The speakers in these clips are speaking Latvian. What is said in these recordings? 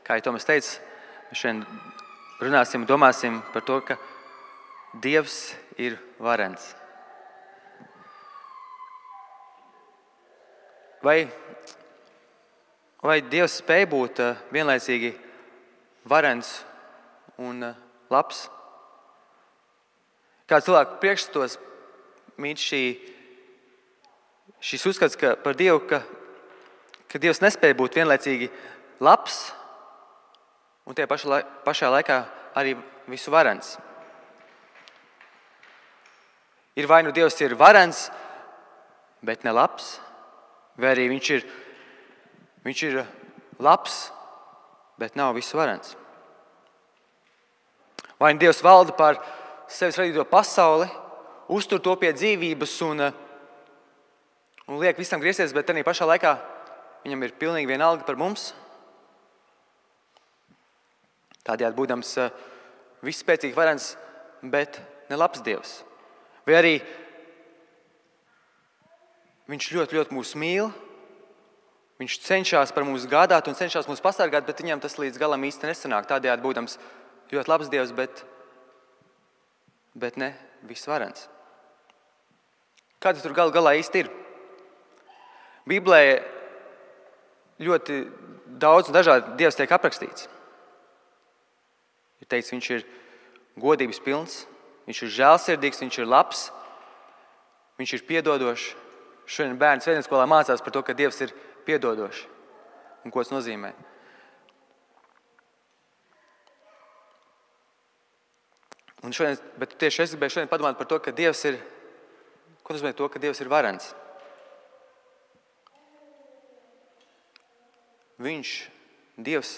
Kā jau Tomas teica, mēs šodien runāsim, domāsim par to, ka Dievs ir varens. Vai Dievs spēj būt vienlaicīgi varens un labs? Kā cilvēku priekšstatos mīt šis uzskats par Dievu, ka Dievs nespēj būt vienlaicīgi labs un tie pašā laikā arī visu varens. Ir vai nu Dievs ir varens, bet ne labs, vai arī viņš ir labs, bet nav visu varens. Vai nu Dievs valda pār sevis radīto pasauli, uztur to pie dzīvības un liek visam griezties, bet arī pašā laikā viņam ir pilnīgi vienalga par mums. Tādējādi būdams visspēcīgi varens, bet ne labs Dievs. Vai arī viņš ļoti, ļoti mūs mīl, viņš cenšas par mums gādāt un cenšas mūs pasargāt, bet viņam tas līdz galam īsti nesanāk. Tādējādi būdams ļoti labs Dievs, bet ne visvarens. Kā tas tur galā īsti ir? Bībelē ļoti daudz un dažādi Dievs tiek aprakstīts. Ir teikts, viņš ir godības pilns, viņš ir žēlsirdīgs, viņš ir labs, viņš ir piedodošs. Šodien bērni svētdienaskolā mācās par to, ka Dievs ir piedodošs un ko tas nozīmē. Bet tieši es gribēju šodien padomāt par to, ka Dievs ir, ko nozīmē to, ka Dievs ir varens. Dievs,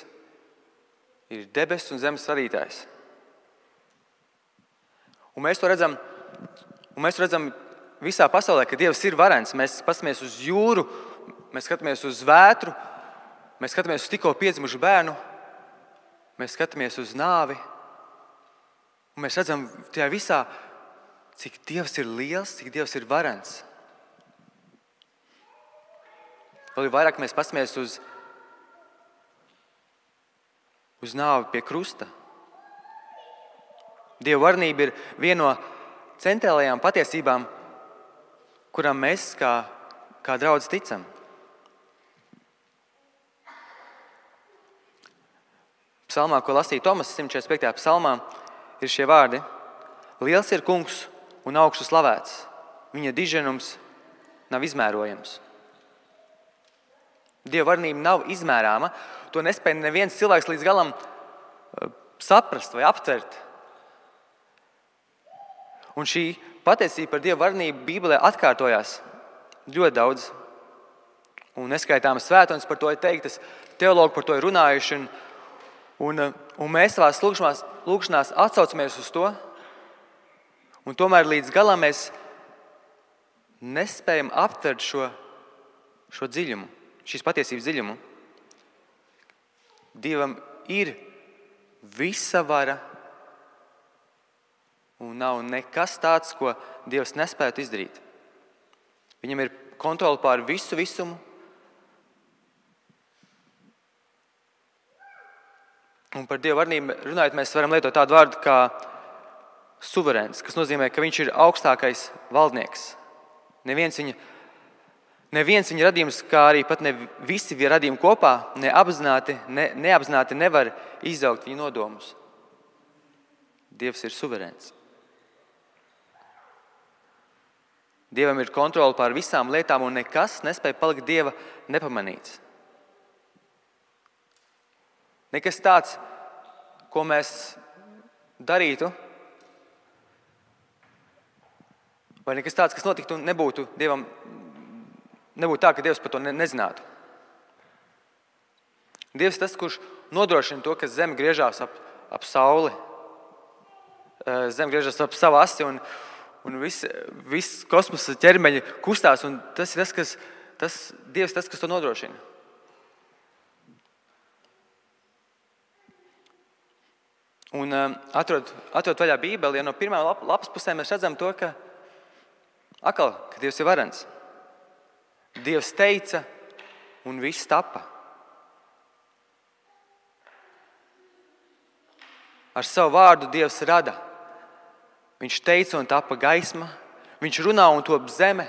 ir debesu un zemes radītājs. Un mēs to redzam visā pasaulē, ka Dievs ir varens. Mēs paskatāmies uz jūru, mēs skatāmies uz vētru, mēs skatāmies uz tikko piedzimušu bērnu, mēs skatāmies uz nāvi. Un mēs redzam tajā visā, cik Dievs ir liels, cik Dievs ir varens. Vēl vairāk mēs paskatāmies uz nāvi pie krusta. Dieva varenība ir viena no centrālajām patiesībām, kurām mēs kā draudz ticam. Psalmā, ko lasīja Tomas, 145. psalmā, ir šie vārdi: Liels ir kungs un augstu slavēts, viņa diženums nav izmērojams. Dieva varenība nav izmērāma, to nespēja neviens cilvēks līdz galam saprast vai aptvert. Un šī patiesība par Dieva varenību Bībelē atkārtojās ļoti daudz. Un neskaitāmas svētdienas par to ir teiktas, teologi par to ir runājuši. Un mēs savās lūgšanās atsaucamies uz to. Un tomēr līdz galam mēs nespējam aptvert šo dziļumu, šīs patiesības dziļumu. Dievam ir visa vara. Un nav nekas tāds, ko Dievs nespētu izdarīt. Viņam ir kontrole pār visu visumu. Un par Dieva varenību runājot, mēs varam lietot tādu vārdu kā suverēns, kas nozīmē, ka viņš ir augstākais valdnieks. Neviens viņa radījums, kā arī pat ne visi radījumi kopā, neapzināti nevar izaugt viņa nodomus. Dievs ir suverēns. Dievam ir kontrole pār visām lietām, un nekas nespēja palikt Dieva nepamanīts. Nekas tāds, ko mēs darītu, vai nekas tāds, kas notiktu, nebūtu tā, ka Dievs par to nezinātu. Dievs ir tas, kurš nodrošina to, ka zeme griežās ap sauli. Zeme griežas ap savu asi, un viss kosmosa ķermeņi kustās, un tas ir Dievs tas, kas to nodrošina. Un atrod vaļā Bībeli, no pirmām lapas pusēm mēs redzam to, ka Dievs ir varens. Dievs teica, un viss tapa. Ar savu vārdu Dievs rada. Viņš teica un tapa gaisma. Viņš runā un top zeme,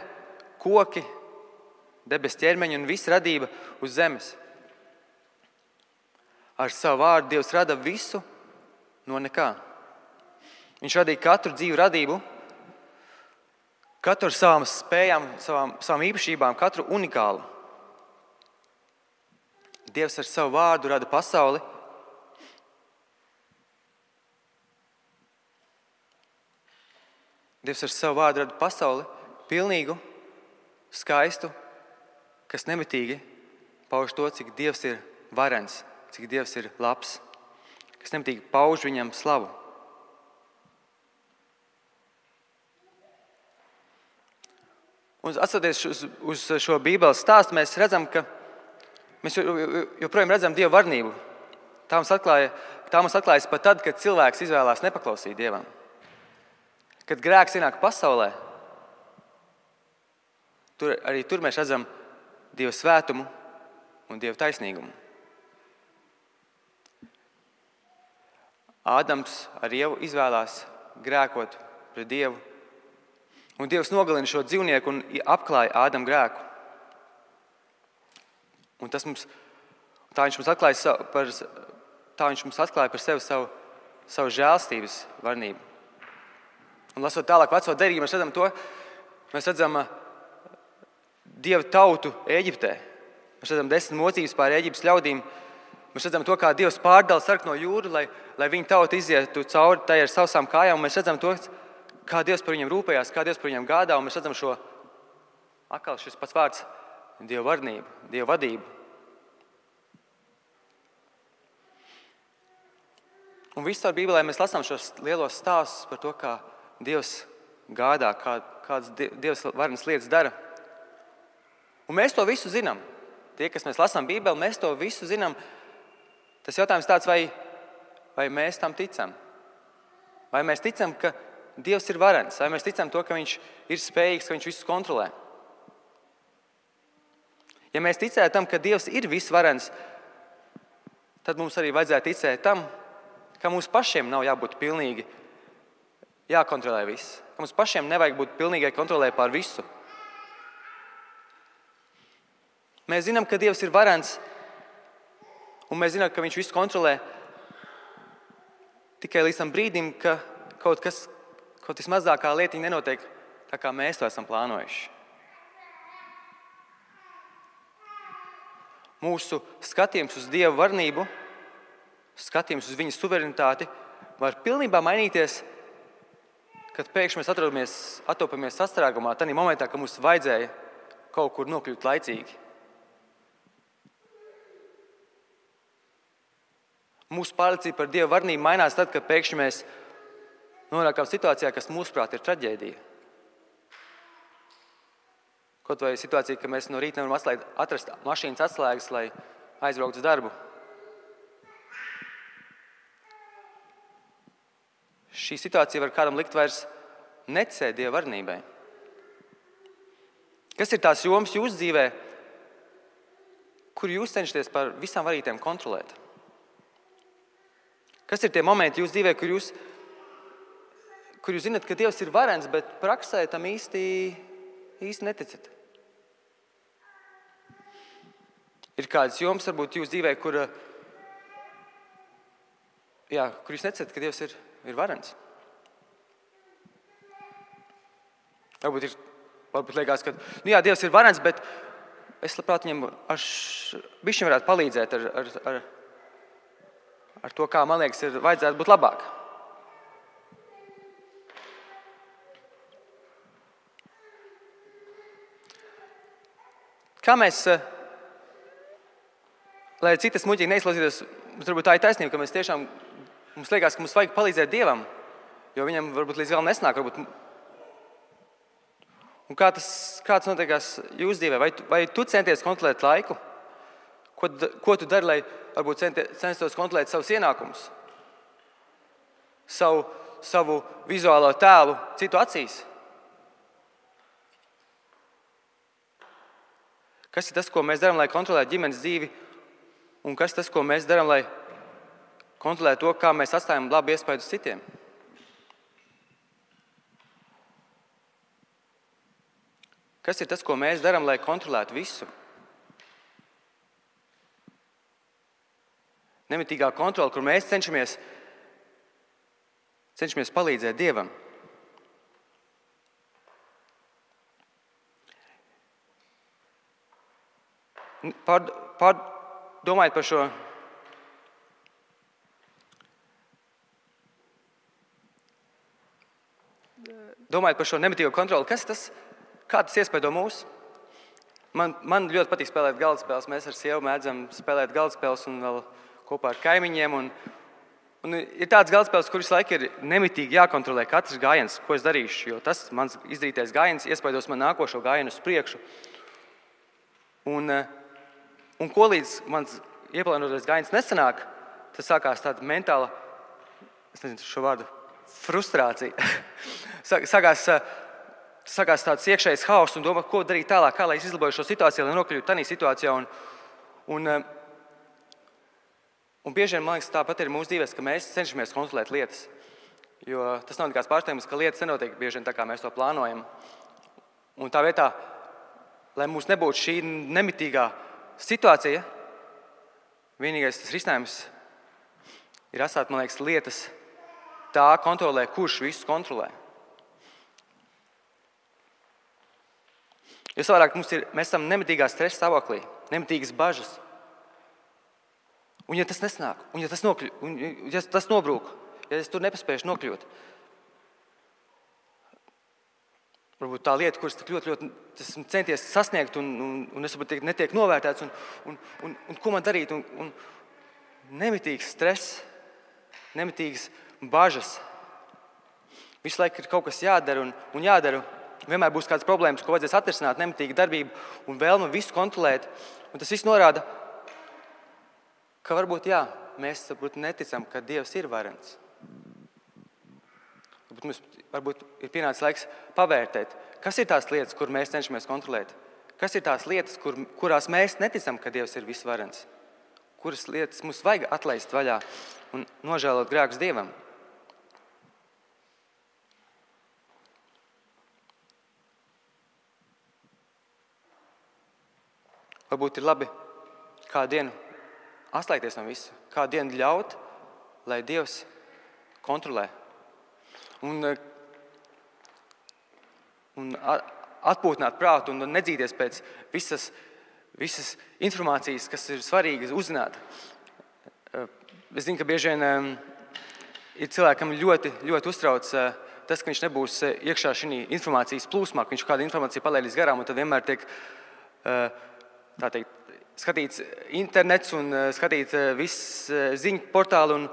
koki, debes ķermeņi un visa radība uz zemes. Ar savu vārdu Dievs rada visu no nekā. Viņš radīja katru dzīvu radību, katru ar savām spējām, savām īpašībām, katru unikālu. Dievs ar savu vārdu rada pasauli. Dievs ar savu vārdu rada pasauli pilnīgu, skaistu, kas nemitīgi pauž to, cik Dievs ir varens, cik Dievs ir labs, kas nemitīgi pauž viņam slavu. Un atskatoties uz šo Bībeles stāstu, mēs redzam, ka mēs joprojām redzam Dieva varnību. Tā mums atklājas pat tad, kad cilvēks izvēlās nepaklausīt Dievam. Kad grēks ienāk pasaulē, tur mēs redzam Dieva svētumu un Dieva taisnīgumu. Ādams ar Ievu izvēlās grēkot pret Dievu. Un Dievs nogalina šo dzīvnieku un apklāja Ādamu grēku. Un tā viņš mums atklāja par sevi savu žēlstības varnību. Un lasot tālāk veco derību, mēs redzam Dieva tautu Ēģiptē. Mēs redzam 10 mocības pār Ēģiptes ļaudīm. Mēs redzam to, kā Dievs pārdala sarkano jūru, lai viņa tauta izietu cauri tai ar savām kājām. Un mēs redzam to, kā Dievs par viņiem rūpējās, kā Dievs par viņiem gādā. Un mēs redzam šis pats vārds Dieva varnību, Dieva vadību. Un visur Bībelē mēs lasām šos lielos stāstus par to, kā Dievs gādā, kādas Dievs varenas lietas dara. Un mēs to visu zinām. Tie, kas mēs lasām Bībeli, mēs to visu zinām. Tas jautājums tāds, vai mēs tam ticam? Vai mēs ticam, ka Dievs ir varens? Vai mēs ticam to, ka Viņš ir spējīgs, ka Viņš visu kontrolē? Ja mēs ticētu tam, ka Dievs ir visvarens, tad mums arī vajadzētu ticēt tam, ka mums pašiem nav jābūt pilnīgi jākontrolē viss. Ka mums pašiem nevajag būt pilnīgai kontrolē pār visu. Mēs zinām, ka Dievs ir varens, un mēs zinām, ka Viņš visu kontrolē tikai līdz tam brīdim, ka kaut vismazākā lietiņa nenotiek tā, kā mēs to esam plānojuši. Mūsu skatījums uz Dieva varnību, skatījums uz Viņa suverenitāti var pilnībā mainīties, kad pēkšņi mēs atopamies sastrēgumā, tādā momentā, kad mums vajadzēja kaut kur nokļūt laicīgi. Mūsu pārliecība par Dieva varnību mainās tad, kad pēkšņi mēs nonākam situācijā, kas mūsuprāt ir traģēdija. Kaut vai situācija, ka mēs no rīta nevaram atrast mašīnas atslēgas, lai aizbrauktu uz darbu. Šī situācija var kādam likt vairs neticēt Dieva varnībai. Kas ir tās jomas jūsu dzīvē, kur jūs cenšaties par visām varītēm kontrolēt? Kas ir tie momenti jūsu dzīvē, kur jūs zinat, ka Dievs ir varens, bet praksē tam īsti neticat? Ir kādas jomas, varbūt jūsu dzīvē, kur jūs neticat, ka Dievs ir varens? Varbūt liekas, ka Dievs ir varens, bet es labprāt viņam bišķiņ varētu palīdzēt ar to, kā man liekas, vajadzētu būt labāk. Kā mēs, lai citas muļķīgi neizklausītos, varbūt tā ir taisnība, ka mums liekas, ka mums vajag palīdzēt Dievam, jo viņam varbūt līdz galam nesnāk. Un kā tas notiekās jūsu dzīvē? Vai tu centies kontrolēt laiku? Ko tu dari, lai varbūt censtos kontrolēt savus ienākumus? Savu vizuālo tēlu citu acīs? Kas ir tas, ko mēs darām, lai kontrolētu ģimenes dzīvi? Un kas ir tas, ko mēs darām, lai kontrolēt to, kā mēs atstājam labu iespēju uz citiem. Kas ir tas, ko mēs darām, lai kontrolētu visu? Nemitīgā kontrole, kur mēs cenšamies palīdzēt Dievam. Domājot par šo nemitīgo kontroli, kas tas? Kā tas iespaido mūs? Man ļoti patīk spēlēt galdspēles. Mēs ar sievu mēdzam spēlēt galdspēles un vēl kopā ar kaimiņiem. Un ir tāds galdspēles, kur visu laiku ir nemitīgi jākontrolē katrs gājiens, ko es darīšu. Jo tas mans izdarītais gājiens iespaidos man nākošo gājienu uz priekšu. Un ko līdz mans ieplānotais gājiens nesanāk, tas sākās tāda mentāla, es nezinu šo vārdu, frustrācija. Sākās tāds iekšējs hauss un domā, ko darīt tālāk, kā lai es izlaboju šo situāciju, lai nokļūtu tādā situācijā. Un bieži vien, man liekas, tāpat ir mūsu dzīvēs, ka mēs cenšamies kontrolēt lietas. Jo tas nav nekāds pārsteigums, ka lietas nenotiek bieži vien tā, kā mēs to plānojam. Un tā vietā, lai mums nebūtu šī nemitīgā situācija, vienīgais tas risinājums ir atstāt, man liekas, lietas tā kontrolē, kurš visu kontrolē. Jo savādāk mēs esam nemitīgā stresa stāvoklī, nemitīgas bažas. Un ja tas nesnāk, un ja tas nobrūk, ja es tur nepaspējuši nokļūt, varbūt tā lieta, kuras tik ļoti esmu centies sasniegt, un es varbūt netiek novērtēts, un ko man darīt, un nemitīgs stress, nemitīgas bažas. Visu laiku ir kaut kas jādara un jādara. Vienmēr būs kādas problēmas, ko vajadzēs atrisināt, nemitīga darbība un vēlme visu kontrolēt. Un tas viss norāda, ka varbūt mēs neticam, ka Dievs ir varens. Varbūt ir pienācis laiks pavērtēt, kas ir tās lietas, kur mēs cenšamies kontrolēt. Kas ir tās lietas, kurās mēs neticam, ka Dievs ir visvarens. Kuras lietas mums vajag atlaist vaļā un nožēlot grēkus Dievam. Varbūt ir labi kādu dienu atslēgties no visa, kādu dienu ļaut, lai Dievs kontrolē. Un atpūtināt prātu un nedzīties pēc visas informācijas, kas ir svarīgas uzzināt. Es zinu, ka bieži vien ir cilvēkam ļoti, ļoti uztrauc tas, ka viņš nebūs iekšā šī informācijas plūsmā, ka viņš kādu informāciju palaidīs garām, un tad vienmēr tiek skatīts internets un skatīt viss ziņu portāli.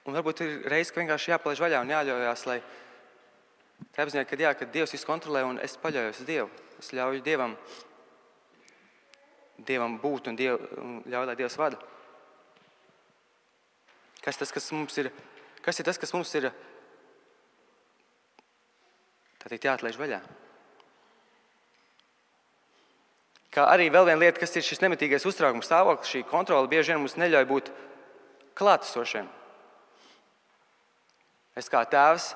Un varbūt ir reize, ka vienkārši jāpalaiž vaļā un jāļaujās, lai tā apziņā, ka Dievs visu kontrolē un es paļaujos uz Dievu. Es ļauju Dievam būt un ļauju, lai Dievs vada. Kas ir tas, kas mums ir jāatlaiž vaļā? Kā arī vēl viena lieta, kas ir šis nemitīgais uztraukums stāvoklis, šī kontrole bieži vien mums neļauj būt klātesošiem. Es kā tēvs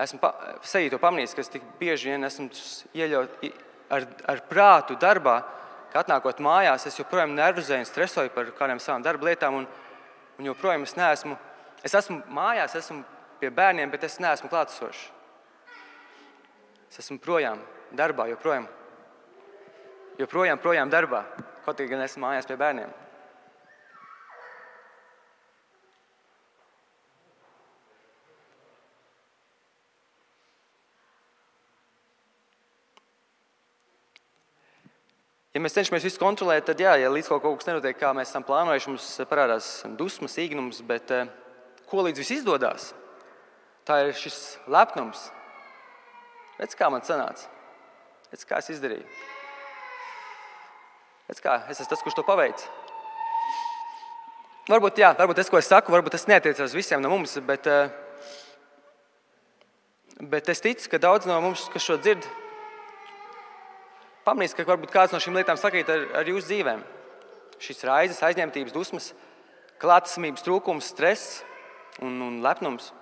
esmu sevī to pamanījis, ka es tik bieži vien esmu ieļaut ar prātu darbā, ka atnākot mājās, es joprojām nervozēju un stresoju par kādām savām darba lietām, un joprojām es esmu mājās, esmu pie bērniem, bet es neesmu klātesošs. Es esmu projām darbā, joprojām darbā, kaut gan esmu mājās pie bērniem. Ja mēs cenšamies visu kontrolēt, tad ja līdz kaut kas nenotiek, kā mēs esam plānojuši, mums parādās dusmas, īgnums, bet ko līdz viss izdodās? Tā ir šis lepnums. Redz, kā man sanāca. Redz, kā es izdarīju. Redz, kā es esmu tas, kurš to paveic. Varbūt tas, ko es saku, varbūt tas neatiecās uz visiem no mums, bet es ticu, ka daudz no mums, kas šo dzird, pamanīs, ka varbūt kāds no šīm lietām sakrīt ar jūsu dzīvēm. Šīs raizes, aizņemtības, dusmas, klātesamības trūkums, stress un lepnums.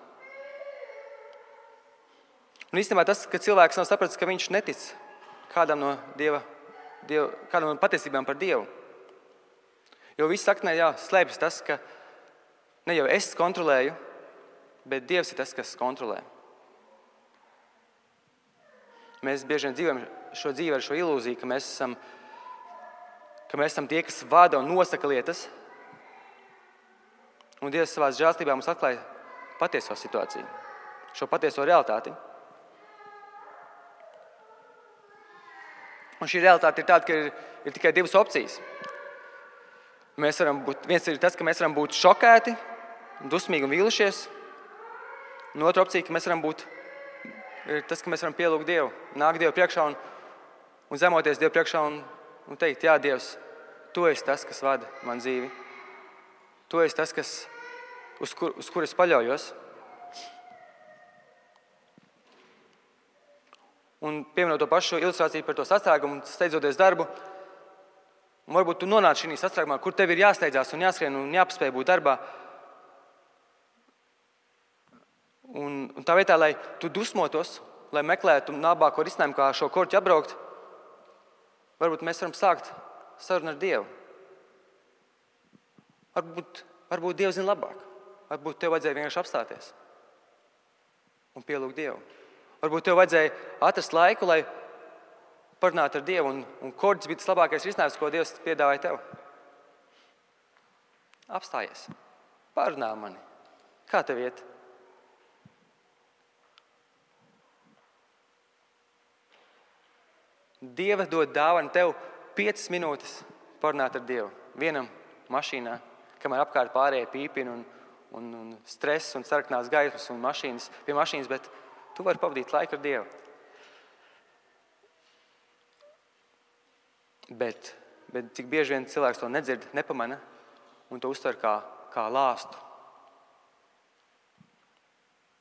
Un īstenībā tas, ka cilvēks nav sapratis, ka viņš netic kādam no kādam no patiesībām par Dievu. Jo viss saknē, slēpjas tas, ka ne jau es kontrolēju, bet Dievs ir tas, kas kontrolē. Mēs bieži vien dzīvojam šo dzīvi ar šo ilūziju, ka mēs esam tie, kas vada un nosaka lietas. Un Dievs savā žēlstībā mums atklāja patieso situāciju, šo patieso realitāti. Un šī realitāte ir tāda, ka ir tikai divas opcijas. Viens ir tas, ka mēs varam būt šokēti, dusmīgi un vīlušies. Un otra opcija, ka mēs varam būt tas, ka mēs varam pielūgt Dievu, nākt Dievu priekšā un zemoties Dievu priekšā un teikt, jā, Dievs, Tu esi tas, kas vada man dzīvi. Tu esi tas, uz kur es paļaujos. Un pieminot to pašu ilustrāciju par to sastrēgumu, steidzoties darbu, un varbūt tu nonāc šī sastrēgumā, kur tev ir jāsteidzās un jāskrien un jāpaspēj būt darbā. Un tā vietā, lai tu dusmotos, lai meklētu labāko risinājumu, kā šo korķi apbraukt, varbūt mēs varam sākt sarunu ar Dievu. Varbūt Dievs zina labāk. Varbūt tev vajadzēja vienkārši apstāties un pielūgt Dievu. Varbūt tev vajadzēja atrast laiku, lai parunātu ar Dievu, un korķis bija tas labākais risinājums, ko Dievs piedāvāja tev. Apstājies. Parunā mani. Kā tev iet? Dieva dod dāvanu tev 5 minūtes parunāt ar Dievu. Vienam mašīnā, kamēr apkārt pārējie pīpina un stress un sarkanās gaismas un pie mašīnas, bet tu vari pavadīt laiku ar Dievu. Bet cik bieži vien cilvēks to nedzird, nepamana un to uztver kā lāstu.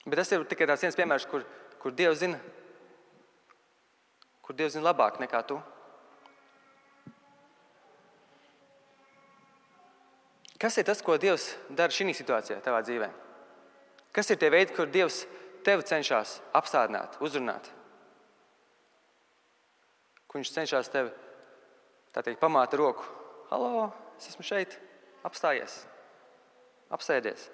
Bet tas ir tikai tāds viens piemērs, kur Dievs zina labāk nekā tu. Kas ir tas, ko Dievs dara šī situācijā tavā dzīvē? Kas ir tie veidi, kur Dievs tevi cenšas apstādināt, uzrunāt? Kur viņš cenšas tevi, pamāt roku. Halo, es esmu šeit, apstājies, apsēdies.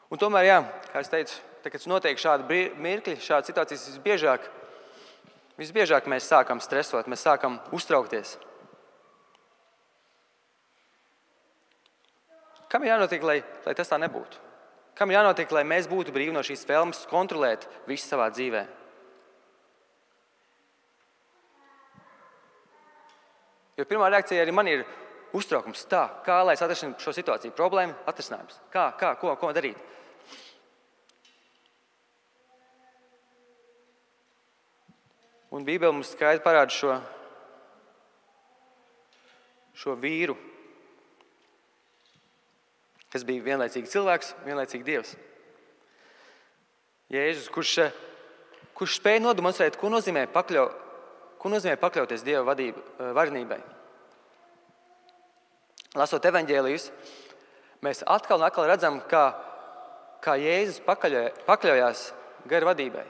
Un tomēr, kā es teicu, kad notiek šādi mirkļi, šādas situācijas visbiežāk mēs sākam stresot, mēs sākam uztraukties. Kam ir jānotiek, lai tas tā nebūtu? Kam ir jānotiek, lai mēs būtu brīvi no šīs vēlmes kontrolēt visu savā dzīvē? Jo pirmā reakcija arī man ir uztraukums. Kā lai es atrastu šo situāciju? Problēma, atrisinājums. Ko darīt? Un Bībele mums skaidri parāda šo vīru, kas bija vienlaicīgi cilvēks, vienlaicīgi Dievs. Jēzus, kurš spēja nodemonstrēt, ko nozīmē pakļauties Dieva varenībai. Lasot evaņģēlijus, mēs atkal un atkal redzam, kā Jēzus pakļaujās gara vadībai.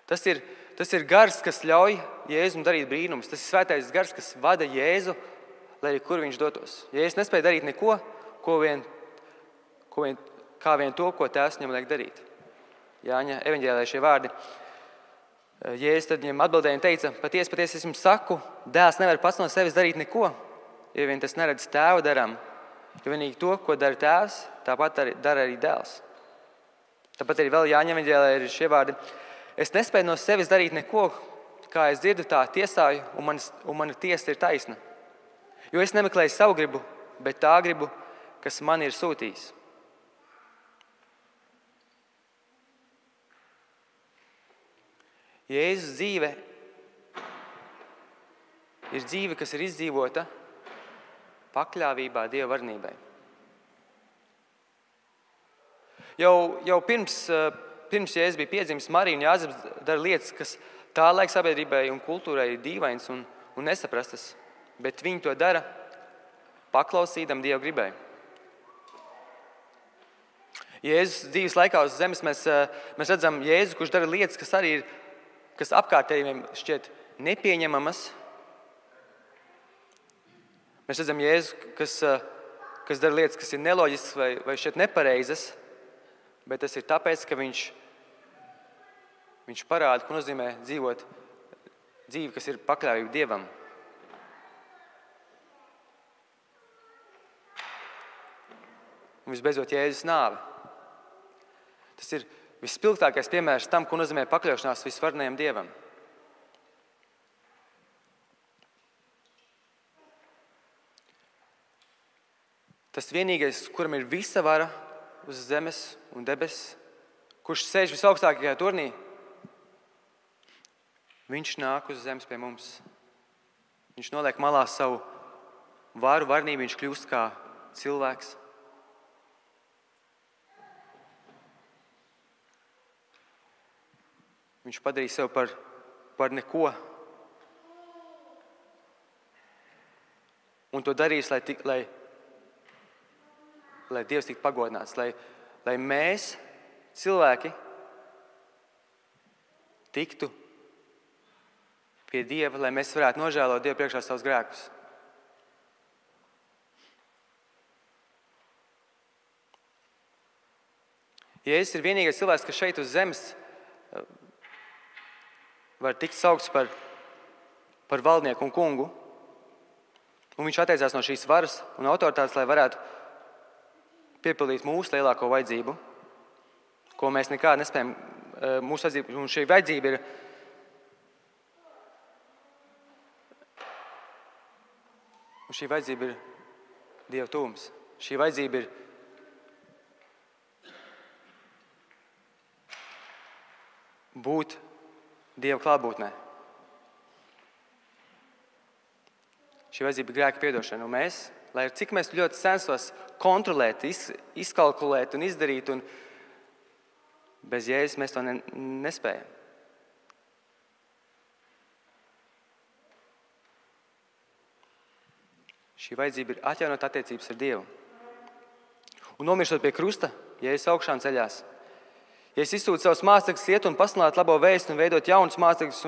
Tas ir gars, kas ļauj Jēzum darīt brīnumus. Tas ir svētais gars, kas vada Jēzu, lai arī kur viņš dotos. Jēzus nespēja darīt neko, kā vien to, ko Tēvs viņam liek darīt. Jāņa evaņģēlijā šie vārdi. Jēzus tad viņam atbildēja un teica, patiesi es jums saku, dēls nevar pats no sevis darīt neko, ja vien tas neredz Tēva darām. Jo vienīgi to, ko dara Tēvs, tāpat dara arī dēls. Tāpat arī vēl Jāņa evaņģēlijā ir šie vārdi. Es nespēju no sevis darīt neko, kā es dzirdu, tā tiesāju, un mana tiesa ir taisna. Jo es nemeklēju savu gribu, bet tā gribu, kas man ir sūtījis. Jēzus dzīve ir dzīve, kas ir izdzīvota pakļāvībā Dieva varenībai. Jau pirms pirms Jēzus bija piedzimis, Marija un Jāzeps dara lietas, kas tā laika sabiedrībai un kultūrai ir dīvains un nesaprastas, bet viņi to dara paklausīdam Dieva gribai. Jēzus dzīves laikā uz zemes mēs redzam Jēzu, kurš dara lietas, kas arī ir, kas apkārtējiem šķiet nepieņemamas. Mēs redzam Jēzu, kas dara lietas, kas ir neloģiskas vai šķiet nepareizas, bet tas ir tāpēc, ka viņš parāda, ko nozīmē dzīvot dzīvi, kas ir pakļāvība Dievam. Un visbeidzot Jēzus nāve. Tas ir visspilgtākais piemērs tam, ko nozīmē pakļaušanās visvarenajam Dievam. Tas vienīgais, kuram ir visa vara uz zemes un debesis, kurš sēž visaugstākajā turnī, viņš nāk uz zemes pie mums. Viņš noliek malā savu varu, varnību, viņš kļūst kā cilvēks. Viņš padarīja sev par neko. Un to darīs, lai Dievs tiktu pagodināts, lai mēs, cilvēki, tiktu pie Dieva, lai mēs varētu nožēlot Dievu priekšā savus grēkus. Jēzus ir vienīgais cilvēks, kas šeit uz zemes var tikt saukts par valdnieku un kungu. Un viņš atteicās no šīs varas un autoritātes, lai varētu piepildīt mūsu lielāko vajadzību, ko mēs nekādi nespējam. Mūsu vajadzība, un šī vajadzība ir Dieva tuvums. Šī vajadzība ir būt Dieva klātbūtnē. Šī vajadzība ir grēka piedošana. Un mēs, lai cik mēs ļoti censtos kontrolēt, izkalkulēt un izdarīt, un bez Jēzus mēs to nespējam. Šī vajadzība ir atjaunot attiecības ar Dievu. Un nomirstot pie krusta, Jēzus augšām ceļās. Jēzus izsūta savus mācekļus iet un pasludināt labo vēstu un veidot jaunus mācekļus,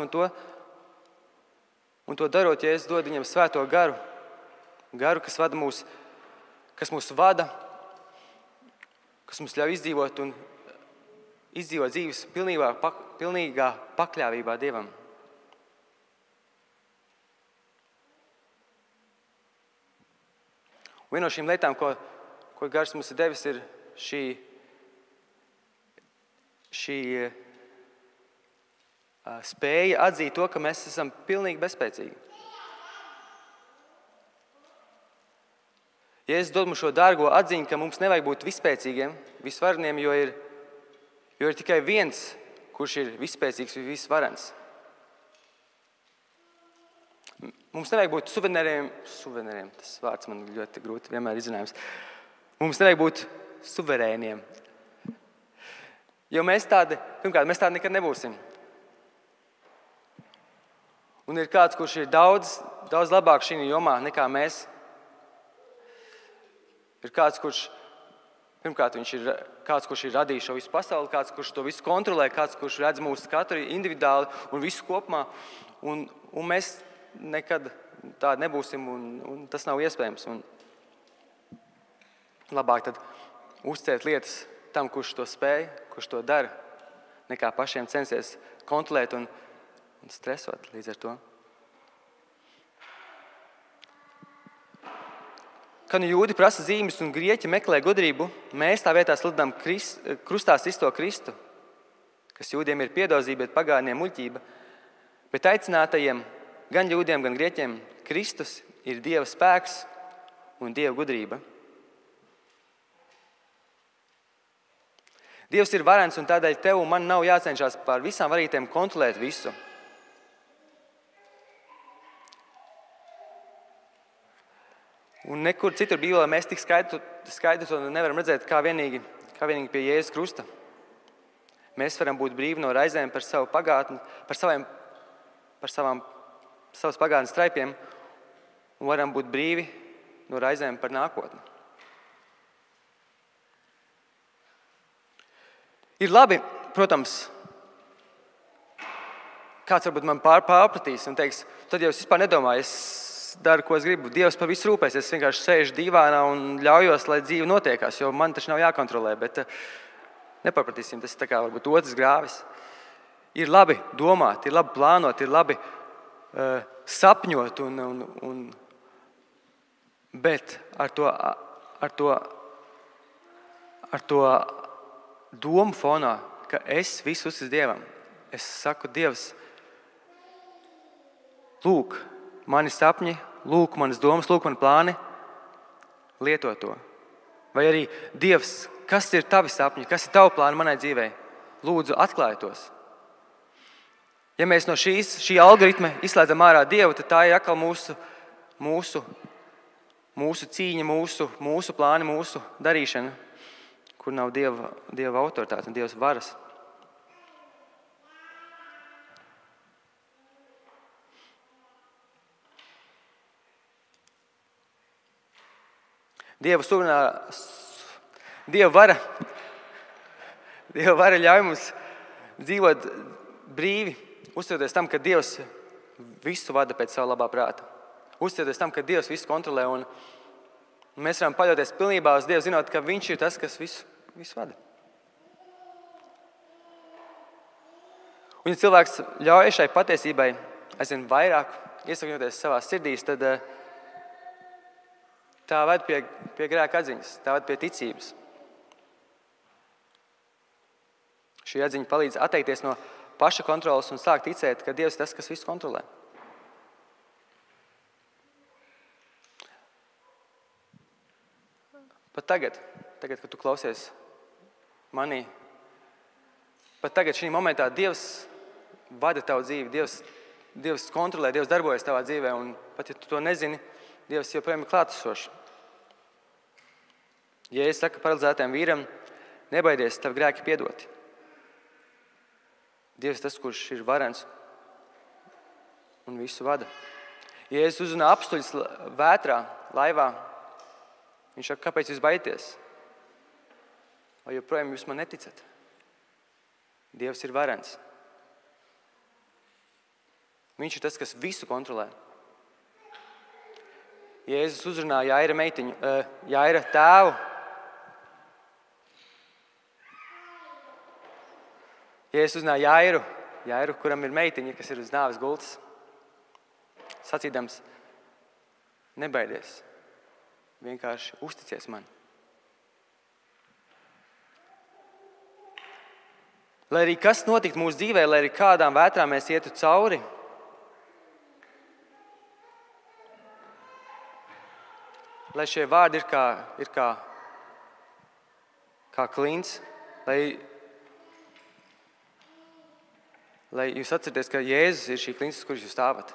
un to darot, Jēzus dod viņam svēto garu, kas mūs vada, kas mums ļauj izdzīvot dzīves pilnīgā pakļāvībā Dievam. Un viena no šīm lietām, ko Gars mums ir devis, ir šī spēja atzīt to, ka mēs esam pilnīgi bezspēcīgi. Jēzus dod mums šo dārgo atziņu, ka mums nevajag būt visspēcīgiem, visvareniem, jo ir tikai viens, kurš ir visspēcīgs un visvarens. Mums nevajag būt suverēniem, tas vārds man ļoti grūti vienmēr izrunājams. Mums nevajag būt suverēniem. Jo mēs tādi nekad nebūsim. Un ir kāds, kurš ir daudz labāk šī jomā nekā mēs. Ir kāds, kurš ir radījis šo visu pasauli, kāds, kurš to visu kontrolē, kāds, kurš redz mūsu katru individuāli un visu kopumā. Un mēs nekad tādi nebūsim, un tas nav iespējams. Un labāk tad uzticēt lietas tam, kurš to spēj, kurš to dara, nekā pašiem censties kontrolēt un stresot līdz ar to. Kad jūdi prasa zīmes un grieķi meklē gudrību, mēs tā vietā sludinām krustā sisto Kristu, kas jūdiem ir piedozība, bet pagāniem muļķība. Bet aicinātajiem, gan jūdiem, gan grieķiem, Kristus ir Dieva spēks un Dieva gudrība. Dievs ir varens, un tādēļ tev un man nav jācenšas pār visām varītēm kontrolēt visu. Un nekur citur Bībelē mēs tik skaidri to nevaram redzēt kā vienīgi pie Jēzus krusta. Mēs varam būt brīvi no raizēm par savu pagātni, par savas pagātnes traipiem, un varam būt brīvi no raizēm par nākotni. Ir labi, protams, kāds varbūt man pārpratīs un teiks, tad jau es vispār nedomāju, es daru, ko es gribu. Dievs par visu rūpēs, es vienkārši sēžu dīvānā un ļaujos, lai dzīve notiekās, jo man taču nav jākontrolē, bet nepapratīsim, tas ir tā kā varbūt otrs grāvis. Ir labi domāt, ir labi plānot, ir labi sapņot, bet ar to domu fonā, ka es visu uzticu Dievam. Es saku, Dievs, lūk, mani sapņi, lūk, manas domas, lūk, mani plāni, lieto to. Vai arī, Dievs, kas ir tavi sapņi, kas ir tavi plāni manai dzīvei? Lūdzu, atklāj tos. Ja mēs no šī algoritma izslēdzam ārā Dievu, tad tā ir atkal mūsu cīņa, mūsu plāni, mūsu darīšana, kur nav Dieva autoritāte un Dievs varas. Dieva vara ļauj mums dzīvot brīvi, uzticoties tam, ka Dievs visu vada pēc savu labā prāta. Uzticoties tam, ka Dievs visu kontrolē, un mēs varam paļauties pilnībā uz Dievu, zinot, ka Viņš ir tas, kas visu vada. Un ja cilvēks ļauj šai patiesībai aizvien vairāk iesakņoties savās sirdīs, tad tā ved pie grēka atziņas, tā ved pie ticības. Šī atziņa palīdz atteikties no paša kontrolas un sākt ticēt, ka Dievs ir tas, kas visu kontrolē. Pat tagad, kad tu klausies manī, pat tagad šī momentā Dievs vada tavu dzīvi, Dievs kontrolē, Dievs darbojas tavā dzīvē, un pat ja tu to nezini, Dievs joprojām ir klātesošs. Jēzus saka paralizētajam vīram, nebaidies, tavi grēki piedoti. Dievs tas, kurš ir varens un visu vada. Jēzus uzrunā apstuļus vētrā, laivā. Viņš saka, kāpēc jūs baidieties? Vai joprojām jūs man neticat? Dievs ir varens. Viņš ir tas, kas visu kontrolē. Jēzus uzrunā Jaira tēvu. Jēzus uzrunā Jairu, kuram ir meitiņa, kas ir uz nāves gultas, sacīdams, nebaidies, vienkārši uzticies man. Lai arī kas notiktu mūsu dzīvē, lai arī kādām vētrām mēs ietu cauri, lai šie vārdi ir kā klints, lai jūs atcerieties, ka Jēzus ir šī klints, uz kuras jūs stāvat.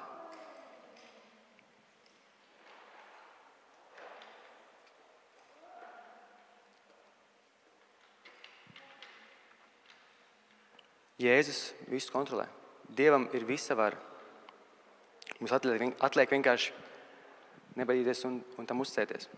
Jēzus visu kontrolē. Dievam ir visa vara. Mums atliek vienkārši nebaidīties un tam uzticēties.